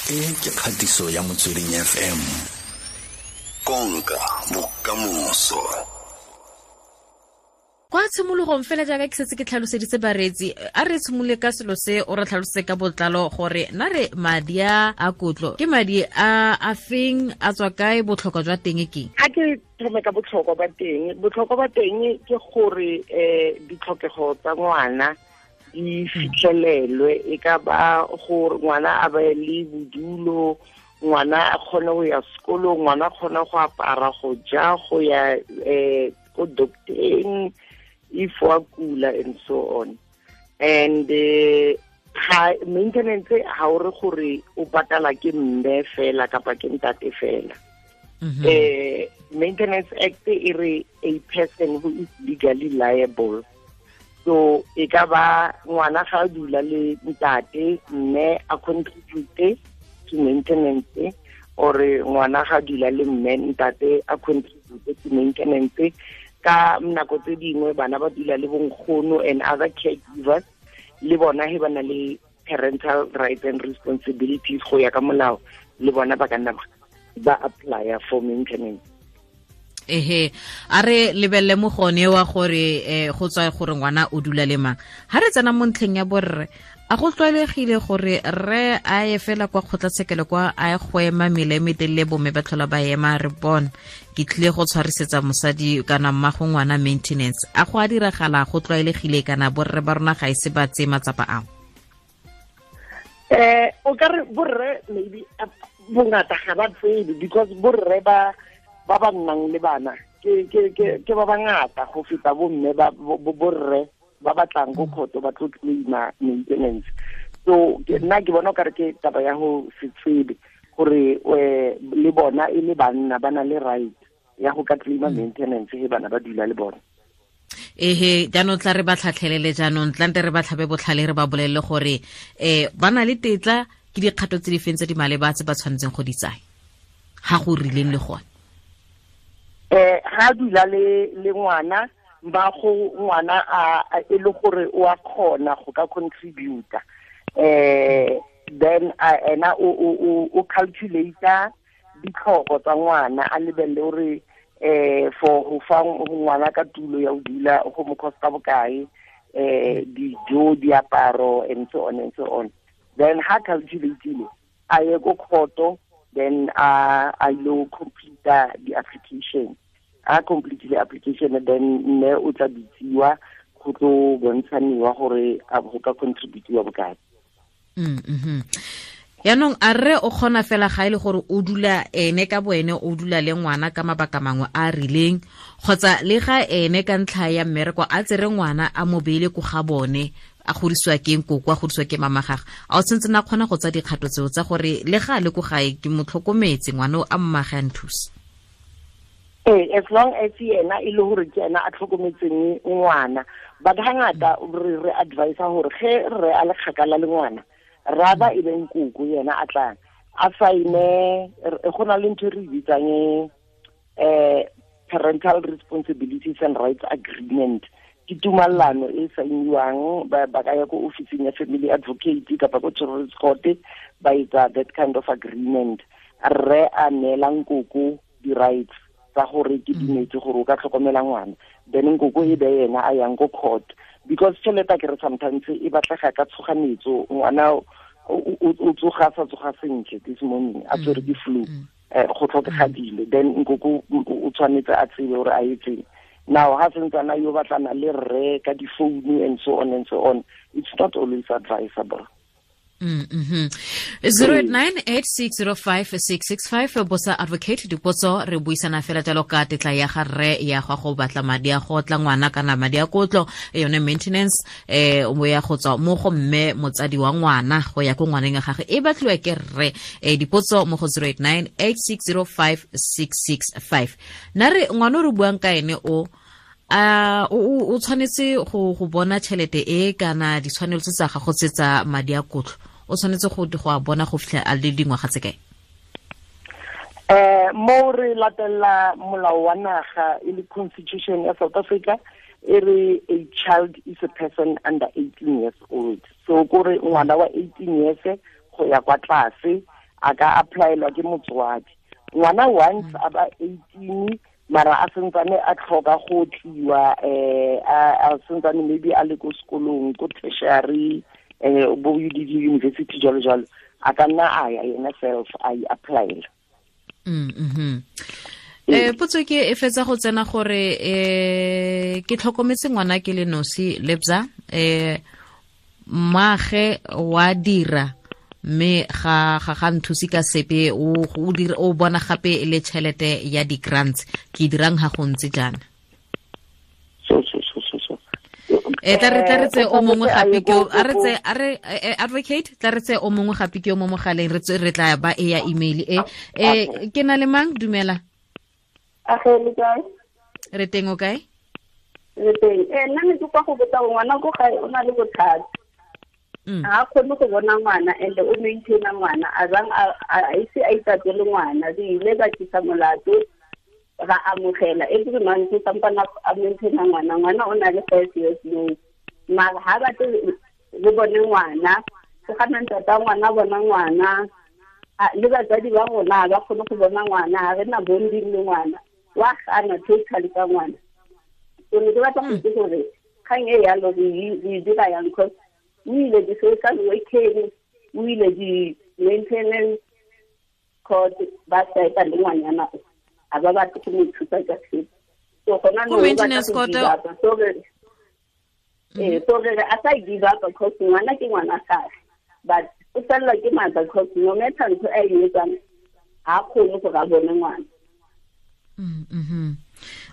E ke kgatiso ya Motsweding FM. Konka bokamoso. Kwa tshimologong fela jaaka ke setse ke tlhaloseditse bareetsi, a re tshimole ka selo se o re tlhalosetse ka botlalo gore na re madi a kotlo ke madi a a feng, a tswa kae, botlhokwa jwa teng ke? A ke thome ka botlhokwa ba teng. Botlhokwa ba teng ke gore ditlhokego tsa ngwana di fitlhelelwe, e ka ba gore ngwana a be le bodulo, ngwana a kgone go ya sekolong, ngwana a kgone go apara, go ja, go ya ko docteng if wa kula and so on. And ga maintenance ha o re gore o patala ke mme fela kapa ke ntate fela. Maintenance Act e re a person who is legally liable. So e ka ba ngwana ga a dula le ntate, mme a contribute to maintenance, or ngwana ga a dula le mme, ntate a contribute to maintenance. Ka nako tse dingwe bana ba dula le bonkgono and other caregivers, le bona he ba na le parental rights and responsibilities go ya ka molao, le bona ba ka nna ba apply for maintenance. Ehe, a re lebelle mo gone wa gore go tswa gore ngwana o dula le mang. Ha re tsena mo ntlheng ya borre, a go tlwaelegile gore re a ye fela kwa kgotlatshekelo kwa a ye go ema mele e metelele, bomme ba tlhola ba ema re bona ke tlile go tshwarisetsa mosadi kana mmago ngwana maintenance. A go a diragala, go tlwaelegile kana borre ba rona ga e se ba tseye matsapa ao? O ka re borre maybe bongata ga ba tsebe, because borre ba ba nnang le bana ke ba bangata go feta bomme ba borre ba batlang go khoto ba tlo claima maintenance. So nna ke bona ka re ke taba ya go se tsebe gore le bona e le banna ba na le right ya go ka claima maintenance he bana ba dula le bona. Ehe, jaanong tla re ba tlhatlhelele, jaanong tlante re ba tlhabe botlhale, re ba bolelele gore ba na le tetla, ke dikgato tse di feng tse di maleba tse ba tshwanetseng go di tsaya ga go rileng le gone. Ga dula le ngwana, ba go ngwana a e le gore o a kgona go ka contributor, then ena o calculator ditlhoko tsa ngwana, a lebelle gore for go fa ngwana ka tulo ya go dula go mo costa bokae, dijo, diaparo and so on and so on. Then ha calculateile a ye ko khoto, then a lo complete the application. A complete the application, then mme o tla bitsiwa go tlo bontshaniwa gore a go ka contributiwa bokae. Yaanong a rre o kgona fela ga e le gore o dula ene ka boene, o dula le ngwana ka mabaka mangwe a a rileng, kgotsa le ga ene ka ntlha ya mmereko a tsere ngwana a mo beile ko ga bone, a godisiwa ke nkoko, a godisiwa ke mama gagwe, a o tshwanetse na kgona go tsa dikgato tseo tsa gore le ga a le ko gae ke mo tlhokometse ngwana o a mmage a nthusa? As long as yena e le gore ke ena a tlhokometseng ngwana, but hangata re advise gore ge re a le kgakala le ngwana, rather e be nkoko yena a tlang a saine. Go na le ntho e re bitsang parental responsibilities and rights agreement, ke tumellano e sainiwang, ba ka ya ko officing ya family advocate kapa ko children's court, ba etsa that kind of agreement. Rre a neela nkoko di-rights tsa gore ke dumetse gore o ka tlhokomela ngwana, then nkoko e be yena a yang ko court, because tšhelete ke re sometimes e batlega ka tshoganetso, ngwana o tsoga sa tsoga sentle this morning a tswere ke flu, go tlhokega dilo, then nkoko o tshwanetse a tsebe gore a etseng. Now ha sentsana yo batlana le rre ka difounu and so on and so on, it's not always advisable. 0898605665 bosa advocate dipotso, re buisana fela jalo ka tetla ya ga rre ya go batla madi a go tla ngwana kana madi a kotlo, yone maintenance, o ya go tswa mo go mme motsadi wa ngwana go ya ko ngwaneng ya gagwe e batliwa ke rre. Dipotso mo go 0898605665. Na re ngwana o re buang ka ene o o tshwanetse go bona tšhelete e kana ditshwanelo tse tsa gago tse tsa madi a kotlo, o tshwanetse go a bona go fitlha a le dingwaga tse kae? Mo re latella molao wa naga e le constitution ya South Africa, e re a child is a person under 18 years old. So kore ngwana wa 18 years go ya kwa tlase A ka applyelwa ke motswadi. Ngwana once a ba 18 mara a sentsane a tlhoka go tliwa a sentsane maybe a le ko sekolong ko tertiary bo UDD university jalo jalo, a ka nna a ya yena self a e applyela. Potso ke e fetsa go tsena gore ke tlhokometse ngwana ke le nosi Lebza, mmaage wa dira mme ga nthusi ka sepe, o bona gape le tšhelete ya di-grants, ke dirang ga go ntse jaana? So tla re tse o mongwe gape ke a re advocate, tla re tse o mongwe gape ke o mo mogaleng, re tla ba e ya email e ke na le mang? Dumela. Age le kae? Re teng, o kae? Re teng. Nna ne ke kwa go botsa ngwana ko gae o na le bothata. Ga a kgone go bona ngwana and o maintaina ngwana, a bang a ise a itatele ngwana. Re ile ka tlisa molato ra amogela every month sampana a maintaina ngwana. Ngwana o na le 5 years now, mara ha batle re bone ngwana, go gana ntata ngwana bona ngwana, le batsadi ba rona ba kgone go bona ngwana, ha re na bonding le ngwana, wa gana totally ka ngwana. So ne ke batla go itse gore kgang e yalo re dira yang, cause o ile di-social working, o ile di-maintenance court, ba saeta le ngwanyana o a ba batle go mo thusa ka sepe. So gona no maintenance court, so re a sa give up because ngwana ke ngwana gage, but o fellwa ke maatla because no matter ntho a e etsang ha kgone gore a bone ngwana.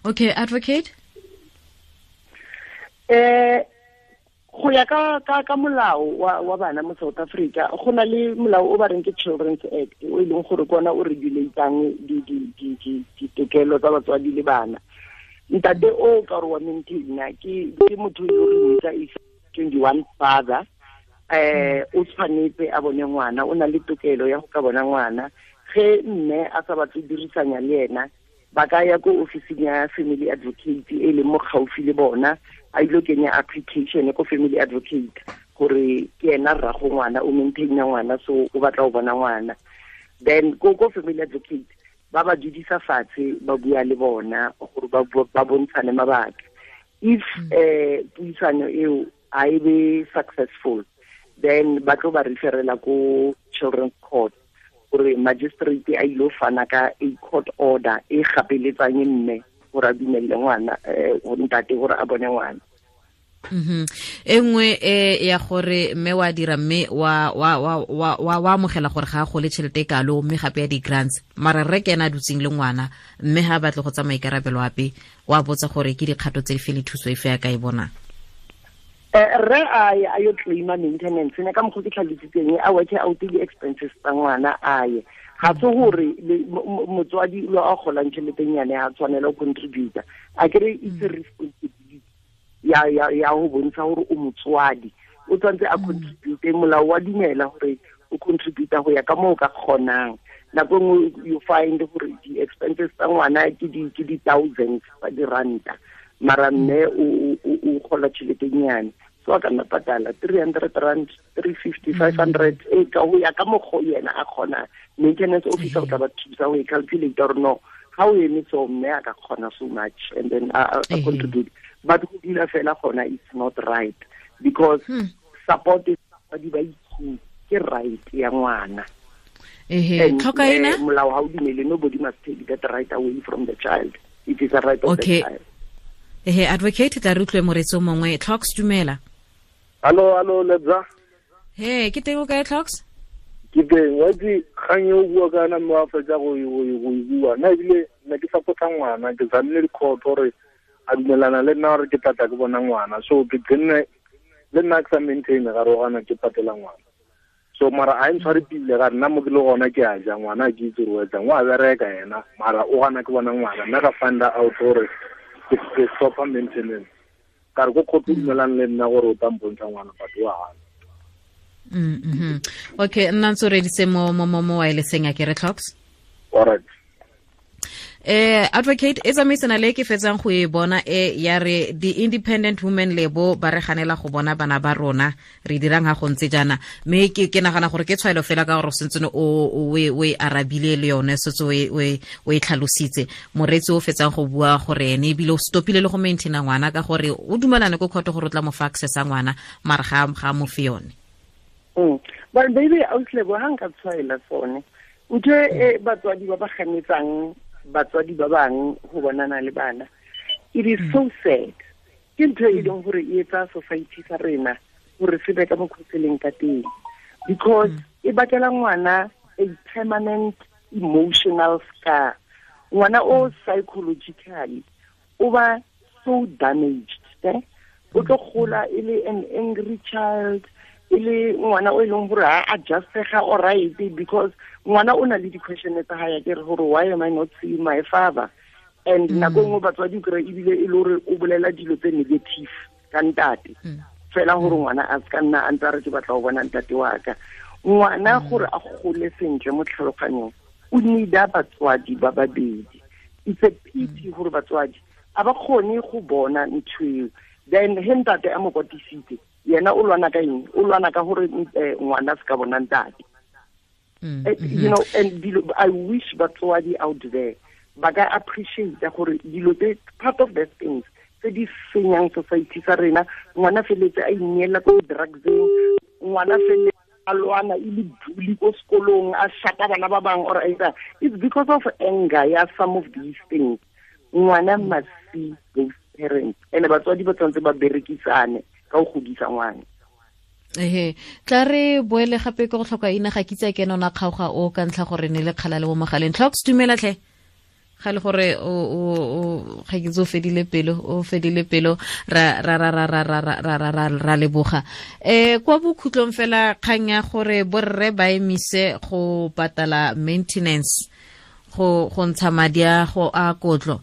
Okay, advocate. Go ya ka molao wa bana mo South Africa, go na le molao o ba reng ke Children's Act, o e leng gore kona o regulatang ditokelo tsa batswadi le bana. Ntate o ka re wa maintaina ke motho yo re mmitsa is 21 father, o tshwanetse a bone ngwana, o na le tokelo ya go ka bona ngwana. Ge mme a sa batle dirisanya le ena, ba ka ya ko ofising ya family advocate e leng mo gaufi le bona, a ile kenya application ko family advocate gore ke ena rrago ngwana, o maintaina ngwana, so o batla go bona ngwana. Then ko family advocate ba ba dudisa fatshe, ba bua le bona gore ba bontshane mabaka. If puisano eo a e be successful, then ba tlo ba referela ko children's court gore magistrate a ile fana ka a court order e gapeletsang mme gore a dumelle ngwana, ntate gore a bone ngwana. E nngwe ya gore mme wa dira mme wa amogela gore ga a gole tšhelete e kalo, mme gape ya di-grants, mara rre ke ena a dutseng le ngwana, mme ga a batle go tsa maikarabelo ape, wa botsa gore ke dikgato tse dife le thuso efe ya ka e bonang. Rre a yo claima maintenance ne ka mokgwa ke tlhalositseng, a work out di-expenses tsa ngwana a ye. Ga se gore motswadi lo a golang tšheletenyane ga tshwanela go contributa, a kere it's a responsibility ya go bontsha gore o motswadi, o tshwanetse a contribute. Molao wa dumela gore o contributa go ya ka moo o ka kgonang. Nako nngwe you find gore di-expenses tsa ngwana ke di-thousands tsa diranta, mara mme o gola tšheletenyane, so a ka nna patala 300 rand, 350, 500, e ka go ya ka mokgwa yena a kgonang. Maintenance officer o tla ba thusa go e calculate gore no, ga o eme so mme a ka kgona so much, and then a contribute. But go dula fela gona it's not right, because support is ba itse ke right ya ngwana. Tlhokaina molao ha o dumele, nobody must take that right away from the child. It is a right of the child. Advocate, tla re utlwe moretsi o mongwe. Tlhoks, dumela. Hallo Lebza. He, ke teng o kae Tlhoks? Ke teng, wa itse kgang e o bua ka yona mme wa fetsa go e bua. Nna ebile ne ke support-a ngwana, ke tsamile di-court gore a dumelana le nna gore ke tlatla ke bona ngwana. So ke tsenne le nna ke sa maintain ga re gana ke patela ngwana. So mara a ntshware pile ga nna mo ke le gona ke a ja ngwana ke itse gore o etsang, wa bereka yena mara o gana ke bona ngwana. Nna ka find out gore ke stop maintenance. Ka re ko court o dumelana le nna gore o tla mpontsha ngwana but wa gana. Okay, nna ntse o reditse mo wirelesseng a ke re Tlhoks. All right. Advocate e tsamaisana le ke fetsang go e bona e ya re the independent women lebo ba re ganela go bona bana ba rona re dirang ha go ntse jana, mme ke nagana gore ke tshwaelo fela ka gore sentse o e arabile le yone setse o e tlhalositse. Moreetsi o fetsang go bua gore ene ebile o stopile le go maintaina ngwana ka gore o dumelane ko court gore o tla mo fa access a ngwana, mara ga mo fe yone. But baby auslebo ha nka tshwaela sone ntho e batswadi ba ba ganetsang batswadi ba bang go bonana le bana, it is so sad. Ke ntho e leng gore e etsa society sa rena gore se be ka mokgwa se leng ka teng, because e bakela ngwana a permanent emotional scar. Ngwana o psychologically o ba so damaged, o tlo gola e le an angry child, e le ngwana o e leng gore ha adjustega all right, because ngwana o na le di-question tsa hae ke re gore why am I not seeing my father? And nako nngwe batswadi kry ebile e le gore o bolela dilo tse negative ka ntate, fela gore ngwana a se ka nna a ntse a re ke batla go bona ntate wa ka. Ngwana gore a gole sentle mo tlhaloganyong o need-a batswadi ba babedi. It's a pity gore batswadi a ba kgone go bona ntho eo. Then he ntate a mo kwatisitse, yena o lwana ka eng? O lwana ka gore ngwana a se ka bona ntate. You know, and I wish batswadi out there ba ka appreciate gore dilo tse part of the things tse di senyang society sa rena. Ngwana feletse a ineela ko drugseng, ngwana feletse a lwana e le bully ko sekolong, a shata bana ba bang or either. It's because of anger ya some of these things. Ngwana must see both parents, and batswadi ba tshwanetse ba berekisane ka go godisa ngwana. Ehe, tla re boele gape ke go tlhoka ina ga kitse ke nona kgaoga o ka ntlha gore ne le kgala le mo mogaleng. Tlhoks dumela tlhe. Ga le gore o ga ke tso fedile pelo, o fedile pelo ra ra ra ra ra ra ra ra ra ra leboga. Kwa bokhutlong fela kgang ya gore borre ba emise go patala maintenance go ntsha madi a go a kotlo,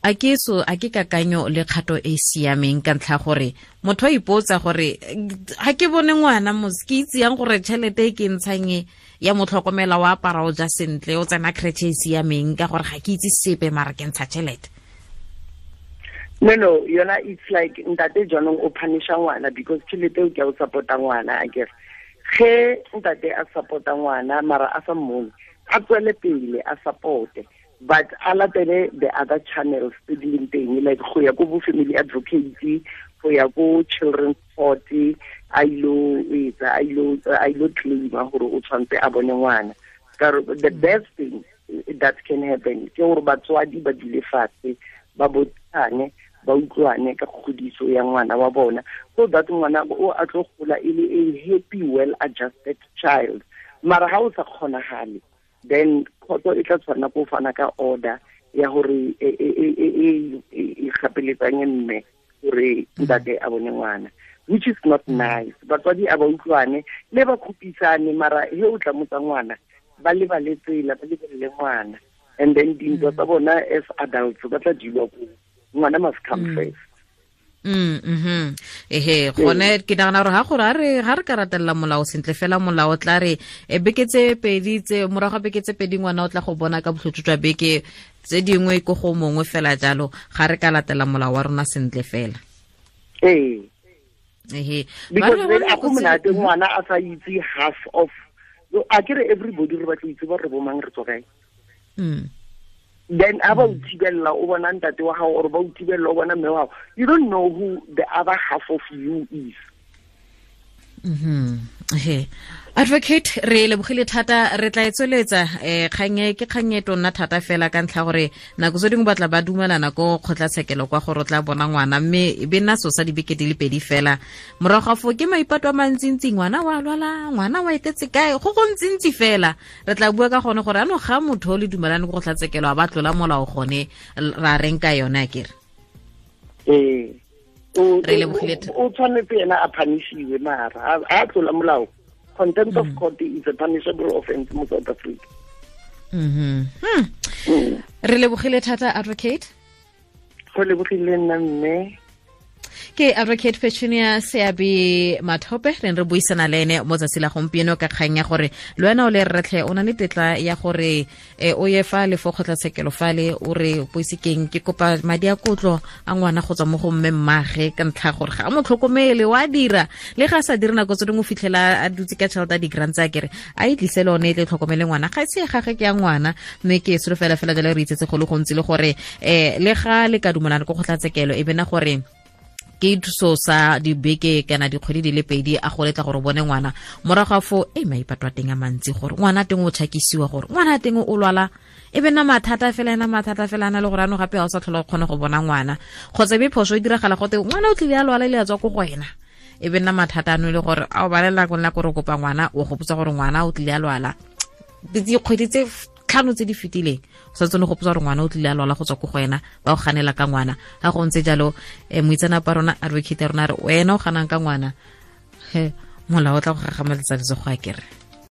a ke so a ke kakanyo le kgato e siameng ka ntlha gore motho a ipotsa gore ga ke bone ngwana mos ke itse yang gore tšhelete e ke ntshang ya motlhokomela wa apara o ja sentle o tsena creche e siameng ka gore ga ke itse sepe mara ke ntsha tšhelete. No, yona it's like ntate jaanong o punisha ngwana because tšhelete o ke o support-a ngwana, I guess. Ge ntate a support-a ngwana mara a sa mmone, a tswele pele a support-e, but a latele the other channels tse di leng teng, like go ya ko bo family advocate, go ya ko children's court, a ilo etsa, a ilo claima gore o tshwanetse a bone ngwana. The best thing that can happen ke gore batswadi ba dule fatshe, ba botsane, ba utlwane ka kgodiso ya ngwana wa bona, so that ngwana o a tlo gola e le a happy, well adjusted child. Mara ha o sa kgonagale, then khotso e tla tshwana go fana ka order ya gore e gapeletsang mme gore ntate a bone ngwana, which is not nice. Batswadi a ba utlwane le ba khupisane, mara he o tla motsa ngwana ba lebale tsela, ba lebelele ngwana, and then dintwa tsa bona as adults ba tla dilwa ko ngwana must come first. Ehe, gone ke nagana gore ga gore ga re ka ratelela molao sentle fela, molao tla re beke tse pedi tse morago ga beke tse pedi ngwana o tla go bona ka botlhotso jwa beke tse dingwe ko go mongwe fela jalo, ga re ka latela molao wa rona sentle fela. Ee. Ehe, because a go monate ngwana a sa itse half of, a kere everybody re batla itse ba re bomang re tswa kae. Then a ba o thibella o bona ntate wa gago or ba o thibella o bona mme wa gago, you don't know who the other half of you is. He, advocate re lebogile thata, re tla e tsweletsa kgang ke kgang e tonna thata fela ka ntlha gore nako tse dingwe batla ba dumelana ko kgotlatshekelo kwa gore o tla bona ngwana, mme e be nna so sa dibeke di le pedi fela morago ga foo ke maipato a mantsintsi, ngwana wa lwala, ngwana wa etetse kae, go go ntsintsi fela. Re tla bua ka gone gore ano ga motho o le dumelane ko kgotlatshekelo a ba tlola molao gone ra reng ka yone a kere. Ee, re lebogile o tshwanetse ena a punishiwe, mara a tlola molao. Contempt of court is a punishable offense mo South Africa. Re lebogile thata advocate. Go lebogile nna mme. Ke Advocate Petunia Seabi Mathope, re re buisana le ene mo tsatsi la gompieno ka kgang ya gore le wena o le rretlhe o na le tetla ya gore o ye fa le fo kgotlatshekelo fale o re poisekeng ke kopa madi a kotlo a ngwana go tswa mo go mme mmage ka ntlha gore ga a mo tlhokomele, wa dira le ga a sa dire nako tse dingwe o fitlhela a dutse ka tšhelete a di-grant tsa kere a e tlise le one e tle tlhokomele ngwana, ga se gage ke ya ngwana. Mme ke solofela fela jalo re itsetse go le gontsi le gore le ga le ka dumelana ko kgotlatshekelo e bena gore ke thuso sa dibeke kana dikgwedi di le pedi a go letla gore o bone ngwana, morago ga foo e maipato a teng a mantsi gore ngwana teng o tšhakisiwa, gore ngwana teng o lwala, e be nna mathata fela, ena mathata fela ana le gore ano gape ga o sa tlhola o kgone go bona ngwana, kgotsa e be phoso e diragala gote ngwana o tlile a lwala le a tswa ko go wena, e be nna mathata ano e le gore a o balela ko nna kore kopa ngwana o gopotsa gore ngwana o tlile a lwala dikgwedi tse 5 tse di fetileng, o sa tsone go gopotsa gore ngwana o tlile a lwala go tswa ko go wena, ba o ganela ka ngwana. Ga go ntse jalo moitseanape wa rona advocate ya rona re wena o ganang ka ngwana, he molao o tla go gagameletsa letsogo a kere.